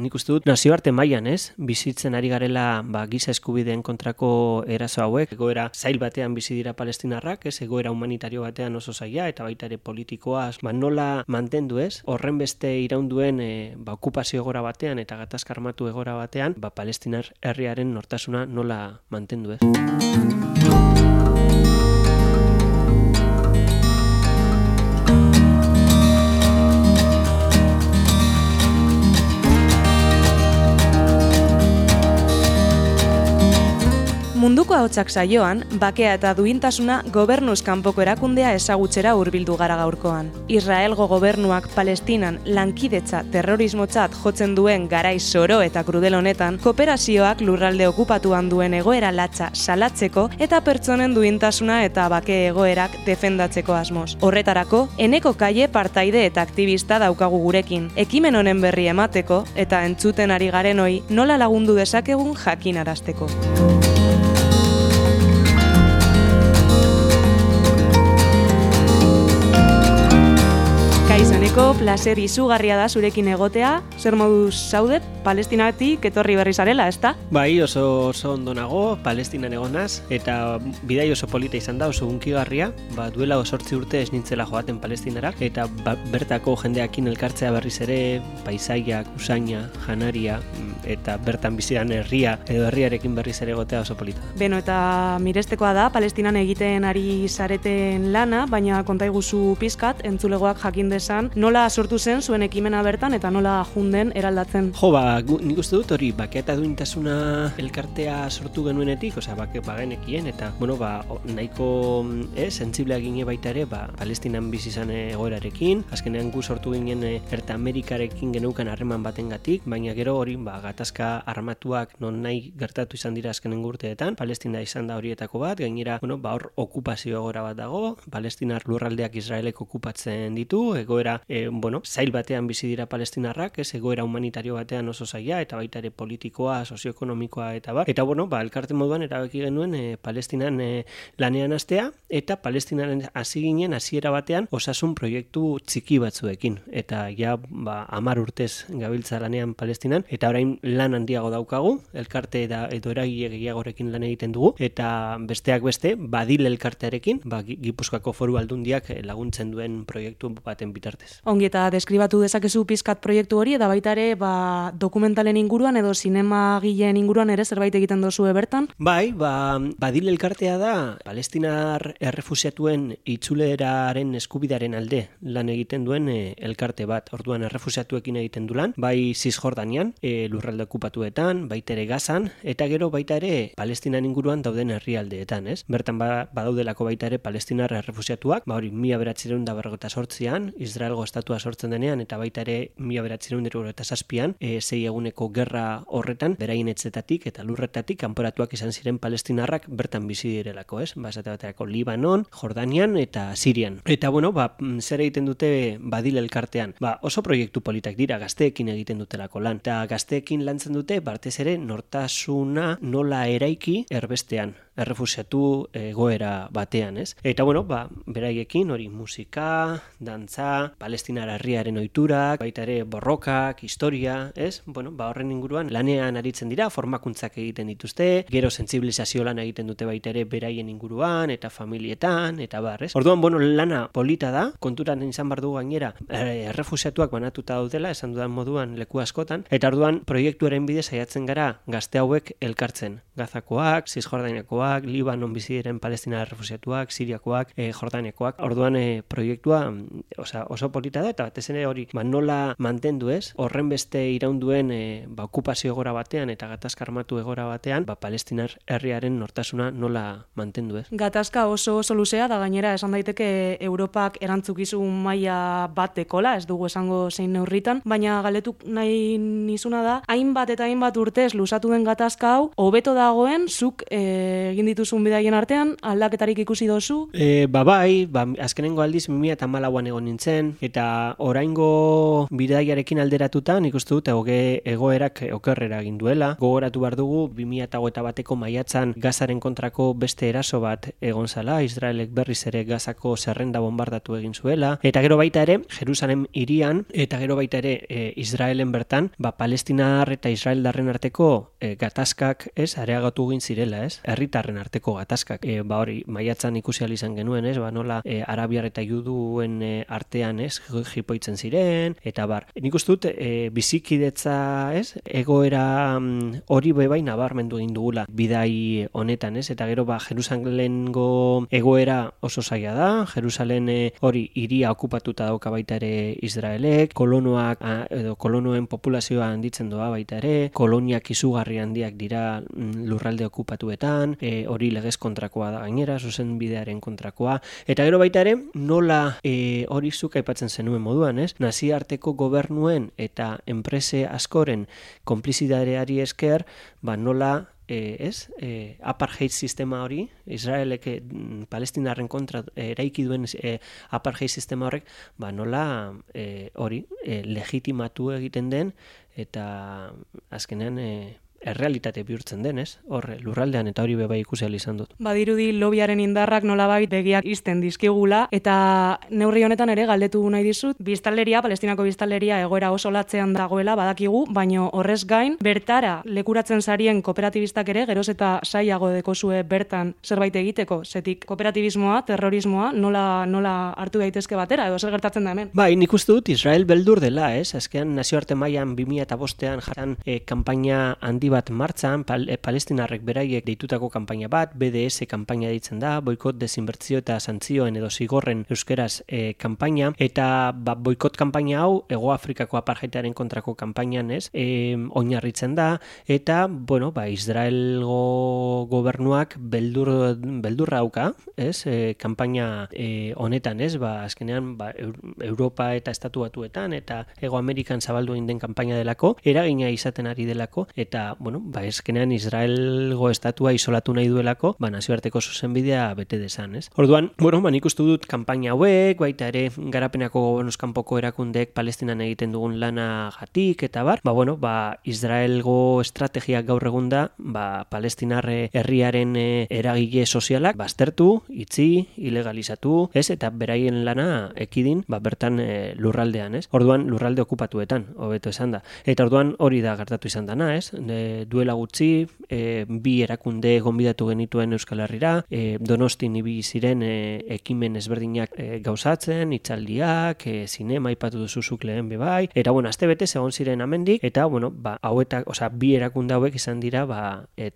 Nik uste dut nazioarte mailan, bizitzen ari garela giza eskubideen kontrako eraso hauek, egoera zail batean bizi dira palestinarrak, egoera humanitario batean oso zaila eta baita ere politikoa, nola mantendu horren beste iraunduen okupazio egora batean eta gatazka armatu egora batean, palestinar herriaren nortasuna nola mantendu Munduko ahotsak saioan, bakea eta duintasuna gobernuz kanpoko erakundea ezagutzera hurbildu gara gaurkoan. Israelgo gobernuak Palestinan lankidetza terrorismotzat jotzen duen garai zoro eta krudel honetan, kooperazioak lurralde okupatuan duen egoera latza salatzeko eta pertsonen duintasuna eta bake egoerak defendatzeko asmoz. Horretarako, Eneko Kaie partaide eta aktivista daukagu gurekin, ekimen honen berri emateko eta entzuten ari garenoi nola lagundu dezakegun jakinarazteko. Kaizaneko, placer izugarria da zurekin egotea. Zer moduz zaude, Palestinatik etorri berri zarela, ezta? Bai, oso ondo nago, Palestinan egonaz, eta bidai oso polita izan da, oso hunkigarria, duela 8 urte ez nintzela joaten Palestinara, eta bertako jendeakin elkartzea berriz ere, paisaiak, usaina, janaria, eta bertan bizidan herria, edo herriarekin berriz ere egotea oso polita. Beno, eta mirestekoa da, Palestinan egiten ari zareten lana, baina konta iguzu pizkat, entzulegoak jakin dezan, nola sortu zen zuen ekimena bertan eta nola junden eraldatzen? Nik uste dut hori bakea eta duintasuna elkartea sortu genuenetik, bagenekien, eta nahiko sentsibleak gine baita ere, Palestinan bizi izan egoerarekin, azkenean gu sortu ginen Erta Amerikarekin geneukan harreman batengatik, baina gero hori gatazka armatuak non nahi gertatu izan dira azkenen urteetan, Palestina izan da horietako bat, gainera hor okupazio egora bat dago, Palestinar lurraldeak Israelek okupatzen ditu, egoera zail batean bizi dira palestinarrak, egoera humanitario batean oso zaila, eta baita ere politikoa, sozioekonomikoa eta bar. Eta elkarte moduan erabaki genuen Palestinan lanean hastea, eta Palestinaren hasi ginen hasiera batean osasun proiektu txiki batzuekin. Eta 10 urtez gabiltza lanean Palestinan, eta orain lan handiago daukagu, elkarte edo eragile gehiagorekin lan egiten dugu, eta besteak beste, Badil elkartearekin, Gipuzkoako Foru Aldundiak laguntzen duen proiektu baten bitartez. Ongi, eta deskribatu dezakezu pizkat proiektu hori, eta baita ere dokumentalen inguruan edo zinemagileen inguruan ere zerbait egiten dozue bertan? Bai, Badil elkartea da Palestinar errefusiatuen itzuleraren eskubidaren alde lan egiten duen elkarte bat. Orduan errefusiatuekin egiten du lan, bai Cisjordanian, lurralde okupatuetan, baita ere Gazan, eta gero baita ere Palestinan inguruan dauden herrialdeetan, Bertan badaudelako baita ere Palestinar errefusiatuak, hori 1948an, Israelgo estatua sortzen denean, eta baita ere 1947an, 6 eguneko gerra horretan, beraien etzetatik eta lurretatik kanporatuak izan ziren palestinarrak bertan bizi direlako, Esate baterako Libanon, Jordanian eta Sirian. Eta zer egiten dute Badil elkartean? Oso proiektu politak dira, gazteekin egiten dutelako lan. Eta gazteekin lantzen dute, batez ere, nortasuna nola eraiki erbestean, errefusiatu egoera batean, Eta beraiekin hori musika, dantza, Palestinar herriaren ohiturak, baita ere borrokak, historia, horren inguruan lanean aritzen dira, formakuntzak egiten dituzte, gero sentsibilizazio lan egiten dute baita ere beraien inguruan eta familietan eta bar, Orduan, lana polita da, konturan izan bar du gainera, errefusiatuak banatuta daudela, esan dudan moduan leku askotan, eta orduan proiektuaren bidez saiatzen gara gazte hauek elkartzen. Gazakoak, Cisjordaniakoak, Libanon bizi diren Palestina errefusiatuak, Siriakoak, Jordaniakoak. Orduan proiektua oso polita da, eta batez ere hori nola mantendu horren beste iraunduen okupazio egora batean eta gatazka armatu egora batean, Palestinar herriaren nortasuna nola mantendu Gatazka oso luzea da, gainera esan daiteke Europak erantzukizun maila bat dekola, ez dugu esango zein neurritan, baina galetuk nahi nizuna da, hainbat eta hainbat urtez luzatu den gatazka hau, hobeto dagoen zuk egin dituzun bidaien artean, aldaketarik ikusi dozu? Bai, azkenengo aldiz 2014an egon nintzen, eta oraingo bidaiarekin alderatuta nik uste dut egoerak okerrera egin duela. Gogoratu behar dugu 2021ko maiatzan Gazaren kontrako beste eraso bat egon zala, Israelek berriz ere Gazako zerrenda bombardatu egin zuela, eta gero baita ere Jerusalem hirian, eta gero baita ere Israelen bertan, Palestinar eta Israeldarren arteko gatazkak areagatu egin zirela, herritarren arteko gatazkak. Hori maiatzan ikusi ahal izan genuen, nola arabiar eta juduen artean jipoitzen ziren, eta nik uste dut bizikidetza egoera hori bebai nabarmendu egin dugula bidai honetan, eta gero Jerusalengo egoera oso zaila da, Jerusalen hori hiria okupatuta dauka baita ere Israelek, kolonoen populazioa handitzen doa baita ere, koloniak izugarri handiak dira lurralde okupatuetan, hori legez kontrakoa da gainera, zuzen bidearen kontrakoa, eta gero baita ere nola hori zuk aipatzen zenuen moduan, nazioarteko gobernuen eta enprese askoren konplizidadeari esker, nola apartheid sistema hori, Israelek Palestinarren kontra eraiki duen apartheid sistema horrek, nola hori legitimatu egiten den, eta azkenean errealitate bihurtzen den, hor lurraldean, eta hori bebai ikusi ahal izan dut. Badirudi lobiaren indarrak nolabait begiak ixten dizkigula, eta neurri honetan ere galdetu nahi dizut, Palestinako biztanleria egoera oso latzean dagoela badakigu, baino horrez gain, bertara lekuratzen sarien kooperatibistak ere, geroz eta saiago dekozue bertan zerbait egiteko, zetik kooperatibismoa, terrorismoa, nola hartu daitezke batera, edo zer gertatzen da hemen? Bai, nik uste dut Israel beldur dela, azkean nazioarte mailan 2005an jartan kanpaina handi bat martxan, palestinarrek beraiek deitutako kanpaina bat, BDS kanpaina deitzen da, boikot, desinbertzio eta santzioen edo zigorren euskeraz kanpaina, eta boikot kanpaina hau Hego Afrikako apartheidaren kontrako kanpainan oinarritzen da, eta Israelgo gobernuak beldurra dauka, kanpaina honetan, azkenean Europa eta Estatu Batuetan eta Hego Amerikan zabaldu egin den kanpaina delako, eragina izaten ari delako, eta eskenean Israelgo estatua isolatu nahi duelako, nazioarteko zuzenbidea bete dezan, Orduan, nik uste dut kanpaina hauek, baita ere garapenako gobernuzkanpoko erakundeek Palestinan egiten dugun lana gatik, eta Israelgo estrategiak gaur egun da, Palestinar herriaren eragile sozialak baztertu, itzi, ilegalizatu, eta beraien lana ekidin, bertan lurraldean, Orduan, lurralde okupatuetan, hobeto esan da. Eta orduan hori da gertatu izan dana, duela gutxi, bi erakunde gonbidatu genituen Euskal Herrira, Donostin ibili ziren ekimen ezberdinak gauzatzen, hitzaldiak, zinema aipatu duzuzuk lehen bebai, eta astebete egon ziren amendik, eta hauetak, bi erakunde hauek izan dira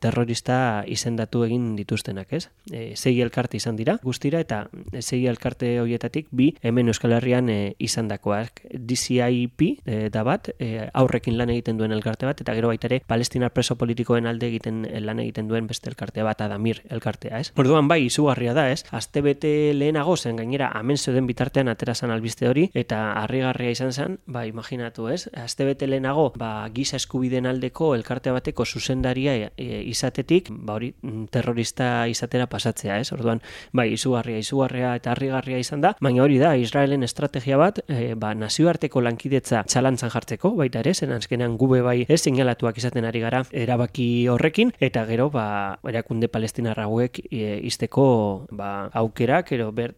terrorista izendatu egin dituztenak, 6 elkarte izan dira guztira, eta 6 elkarte horietatik bi hemen Euskal Herrian izandakoak. DCIP da bat, aurrekin lan egiten duen elkarte bat, eta gero baita ere Palestinar preso politikoen alde lan egiten duen beste elkarte bat, Adamir elkartea, Orduan izugarria da, astebete lehenago zen gainera hemen zeuden bitartean aterazan albiste hori, eta harrigarria izan zen, imaginatu, astebete lehenago, giza eskubideen aldeko elkarte bateko zuzendaria izatetik, hori terrorista izatera pasatzea, Orduan, izugarria eta harrigarria izan da, baina hori da, Israelen estrategia bat, nazioarteko lankidetza txalantzan jartzeko, baita ere, zen azkenean gube seinalatuak izaten ari gara erabaki horrekin, eta gero erakunde palestinar hauek izteko aukerak,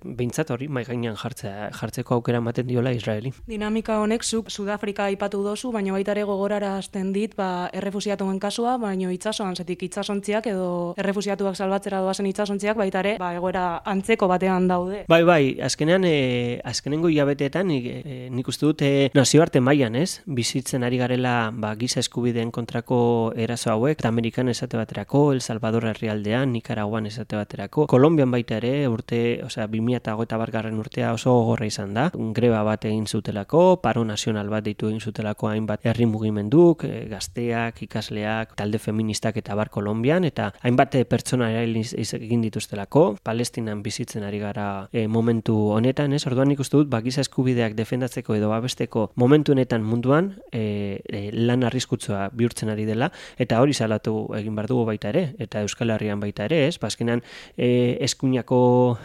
behintzat hori mai gainean jartzeko aukera ematen diola Israeli. Dinamika honek zuk Sudafrika aipatu dozu, baina baita ere gogorara hasten dit errefusiatuen kasua, baina itsasoan, zetik itsasontziak edo errefusiatuak salbatzera doazen itsasontziak baita ere egoera antzeko batean daude. Bai, azkenengo hilabeteetan nik uste dut nazioarte mailan, bizitzen ari garela giza eskubideen kontrako eraso hauek, Amerikan esate baterako, El Salvador herrialdean, Nikaraguan esate baterako, Kolonbian baita ere, 2021 urtea oso gogorra izan da, greba bat egin zutelako, paro nazional bat deitu egin zutelako hainbat herri mugimenduk, gazteak, ikasleak, talde feministak eta bar Kolonbian, eta hainbat pertsona egin dituztelako, Palestinan bizitzen ari gara momentu honetan, Orduan nik uste dut, giza eskubideak defendatzeko edo babesteko momentu honetan munduan lan arriskutsua bihurtzen ari dela, dela, eta hori salatu egin behar dugu baita ere, eta Euskal Herrian baita ere, ez? Azkenean eskuinako,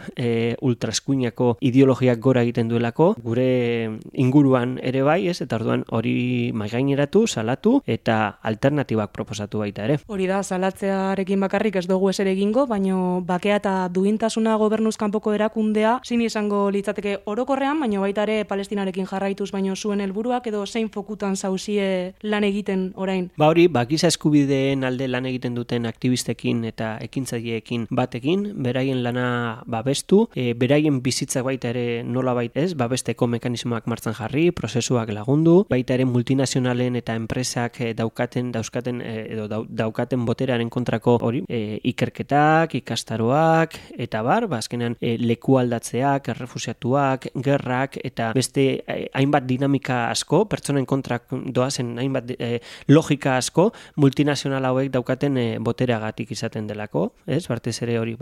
ultraeskuinako ideologiak gora egiten duelako, gure inguruan ere bai, ez? Eta orduan hori maigaineratu, salatu, eta alternatibak proposatu baita ere. Hori da, salatzearekin bakarrik ez dugu eser egingo, baino bakea eta duintasuna gobernuz kanpoko erakundea, zin izango litzateke orokorrean, baino baita ere Palestinarekin jarraituz, baino zuen helburuak edo zein fokutan zauzie lan egiten orain? Hori, giza eskubideen alde lan egiten duten aktivistekin eta ekintzaileekin batekin, beraien lana babestu, beraien bizitzak baita ere nolabait ez, babesteko mekanismoak martxan jarri, prozesuak lagundu, baita ere multinazionalen eta enpresak daukaten boterearen kontrako hori, ikerketak, ikastaroak, eta azkenean leku aldatzeak, errefusiatuak, gerrak, eta beste hainbat dinamika asko, pertsonen kontrak doazen hainbat logika asko, multinazional hauek daukaten botereagatik izaten delako, ez? Batez ere hori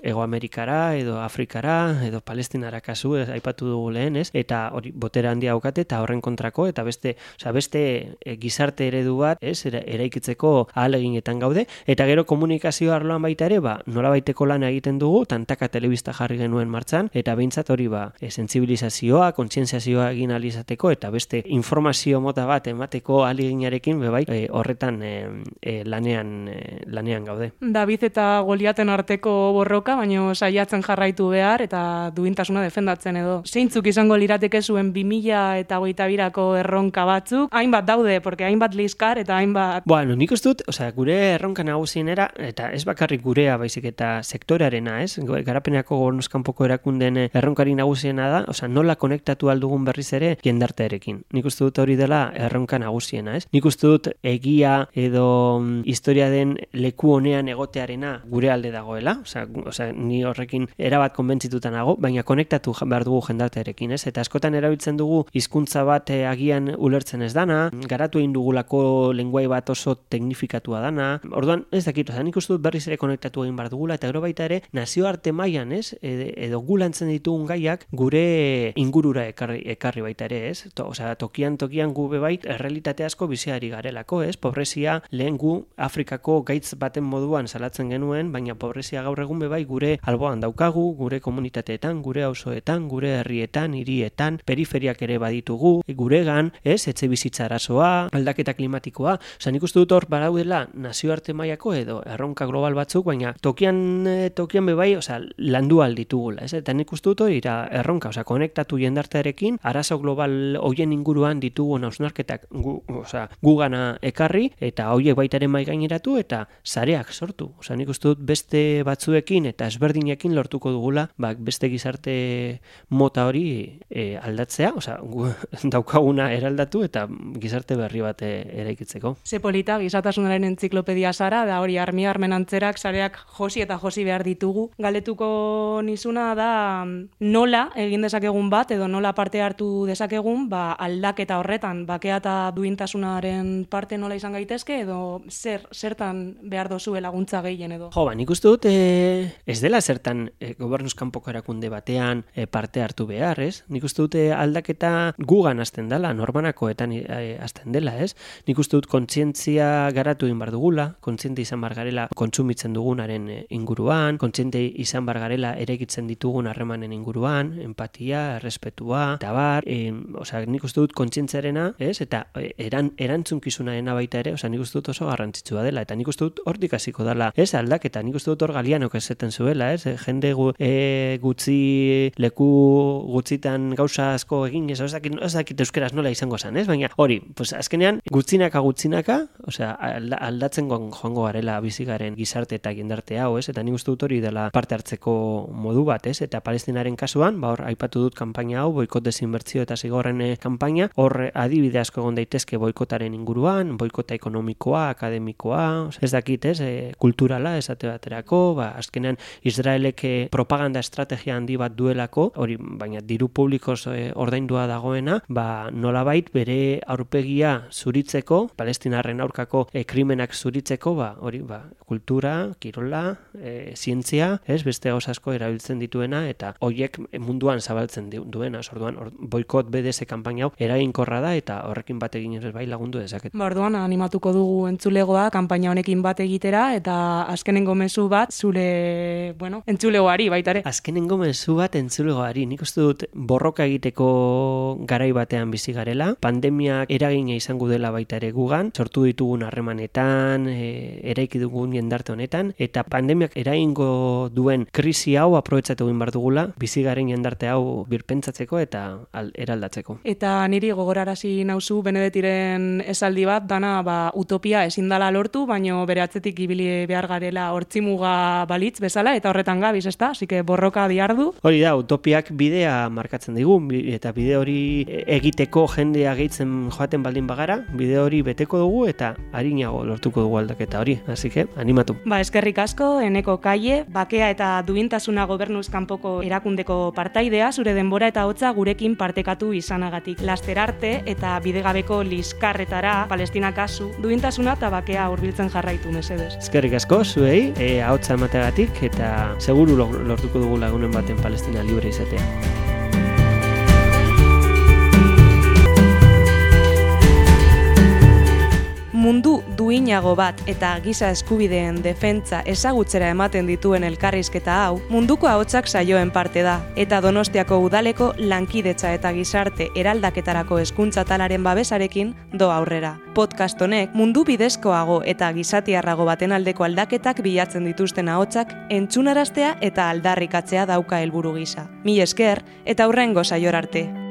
Ego Amerikara, edo Afrikara, edo Palestinara kasu, aipatu dugu lehen, ez? Eta hori botere handia daukate, eta horren kontrako, eta beste gizarte eredu bat, ez? Eraikitzeko ahaleginetan gaude, eta gero komunikazio arloan baita ere, nolabaiteko lan egiten dugu, tantaka telebista jarri genuen martxan, eta behintzat hori sentsibilizazioa, kontzientziazioa egin ahal izateko, eta beste informazio mota bat emateko ahaleginarekin bebai horretan lanean gaude. David eta Goliaten arteko borroka, baino saiatzen jarraitu behar, eta duintasuna defendatzen edo. Zeintzuk izango lirateke zuen 2022ko erronka batzuk? Hainbat daude, porque hainbat liskar eta hainbat... Bueno, nik uste dut, gure erronka nagusienera, eta ez bakarrik gurea baizik eta sektorearena, ez? Garapeneko gobernuz kanpoko erakunden erronkari nagusiena da, nola konektatu aldugun berriz ere jendartearekin. Nik uste dut hori dela erronka nagusiena, ez? Nik uste dut egia edo historia den leku honean egotearena gure alde dagoela, ni horrekin erabat konbentzituta nago, baina konektatu behar dugu jendartearekin, ez? Eta askotan erabiltzen dugu hizkuntza bat agian ulertzen ez dana, garatu egin dugulako lenguai bat oso teknifikatua dana. Orduan, ez dakit, nik uste dut berriz ere konektatu egin behar dugula, eta gero baita ere nazioarte mailan, ez? Edo gulantzen ditugun gaiak gure ingurura ekarri baita ere, ez? Tokian gu bebait errealitate asko biziari garelako, ez? Pobrezia lehen gu Afrikako gaitz baten moduan salatzen genuen, baina pobrezia gaur egun bebai gure alboan daukagu, gure komunitateetan, gure auzoetan, gure herrietan, hirietan, periferiak ere baditugu, guregan, ez? Etxe bizitza arazoa, aldaketa klimatikoa, nik uste dut hor badaudela nazioarte mailako edo erronka global batzuk, baina tokian bebai, landu alditugula, ez? Eta nik uste dut hori erronka, konektatu jendartearekin, arazo global hoien inguruan ditugun hausnarketak gugana ekarri, eta hoiek baita ere maigaineratu, eta sareak sortu. Nik uste dut beste batzuekin eta ezberdinekin lortuko dugula, beste gizarte mota hori aldatzea, daukaguna eraldatu eta gizarte berri bat eraikitzeko. Ze polita, gizatasunaren entziklopedia zara, da hori armen antzerak, sareak josi eta josi behar ditugu. Galetuko nizuna da nola egin dezakegun bat, edo nola parte hartu dezakegun, aldaketa horretan, bakea eta duintasunaren parte nola izan gaitezke, edo zertan behar dozue laguntza gehien edo? Nik uste dut ez dela zertan gobernuz kanpoko erakunde batean parte hartu behar, ez? Nik uste dut aldaketa gugan hasten dela, norbanakoetan hasten dela, ez? Nik uste dut kontzientzia garatu egin bar dugula, kontziente izan bar garela kontsumitzen dugunaren inguruan, kontziente izan bar garela eraikitzen ditugun harremanen inguruan, empatia, errespetua, eta bar, nik uste dut kontzientziarena, ez? Eta erantzunkizunaena baita ere, nik uste dut oso garrantzitsua dela, eta nik uste dut hortik hasiko dela, ez? Aldaketa, nik uste dut hor Galianok esaten zuela, ez? Jende gutxi leku gutxitan gauza asko egin, ez dakit euskeraz nola izango zen, ez? Baina hori, azkenean gutxinaka, aldatzen joango garela bizigaren gizarte eta jendarte hau, ez? Eta nik uste dut hori dela parte hartzeko modu bat, ez? Eta Palestinaren kasuan, hor aipatu dut kanpaina hau, boikot desinbertsio eta zigorren kanpaina, hor adibide asko egon daitezke boikotaren inguruan, boikota ekonomikoa, akademikoa, ez dakit, ez? Kulturala, esate baterako, azkenean Israelek propaganda estrategia handi bat duelako, hori, baina diru publikoz ordaindua dagoena, nolabait bere aurpegia zuritzeko, Palestinarren aurkako krimenak zuritzeko, hori, kultura, kirola, zientzia, beste gauz asko erabiltzen dituena, eta horiek munduan zabaltzen duena, orduan, boikot BDS kanpaina hau eraginkorra da, eta horrekin bat egin ere bai lagundu dezaket. Orduan, animatuko dugu entzulegoa kanpaina honekin bat egitera, eta azkenengo mezu bat zure, entzulegoari baita ere. Azkenengo mezu bat entzulegoari, nik uste dut borroka egiteko garai batean bizi garela, pandemiak eragina izango dela baita ere gugan, sortu ditugun harremanetan, eraiki dugun jendarte honetan, eta pandemiak eragingo duen krisi hau aprobetxatu egin behar dugula, bizi garen jendarte hau birpentsatzeko eta eraldatzeko. Eta niri gogorarazi nauzu Benedetiren esaldi bat, dana utopia ezin dela lortu, baino bere atzetik ibili behar garela hortzimuga balitz bezala, eta horretan gabiz, ezta? Así que borroka diardu. Hori da, utopiak bidea markatzen digu, eta bide hori egiteko jendea gehitzen joaten baldin bagara, bide hori beteko dugu eta arinago lortuko dugu aldaketa hori, así que animatu. Eskerrik asko, Eneko Kaie, bakea eta duintasuna gobernuz kanpoko erakundeko partaidea, zure denbora eta hotza gurekin partekatu izanagatik. Laster arte eta bidegabeko liskarretara, Palestina kasu, duintasuna eta bakea hurbiltzen jarraitu, mesedez. Eskerrik asko, zuei, ahotsa emateagatik, eta seguru lortuko dugu lagunen baten Palestina libre izatea. Mundu duinago bat eta giza eskubideen defentsa ezagutzera ematen dituen elkarrizketa hau, munduko ahotsak saioen parte da, eta Donostiako udaleko lankidetza eta gizarte eraldaketarako hezkuntza talaren babesarekin do aurrera. Podcast honek mundu bidezkoago eta gizatiarrago baten aldeko aldaketak bilatzen dituzten ahotsak entzunaraztea eta aldarrikatzea dauka helburu gisa. Mil esker eta hurrengo saiora arte.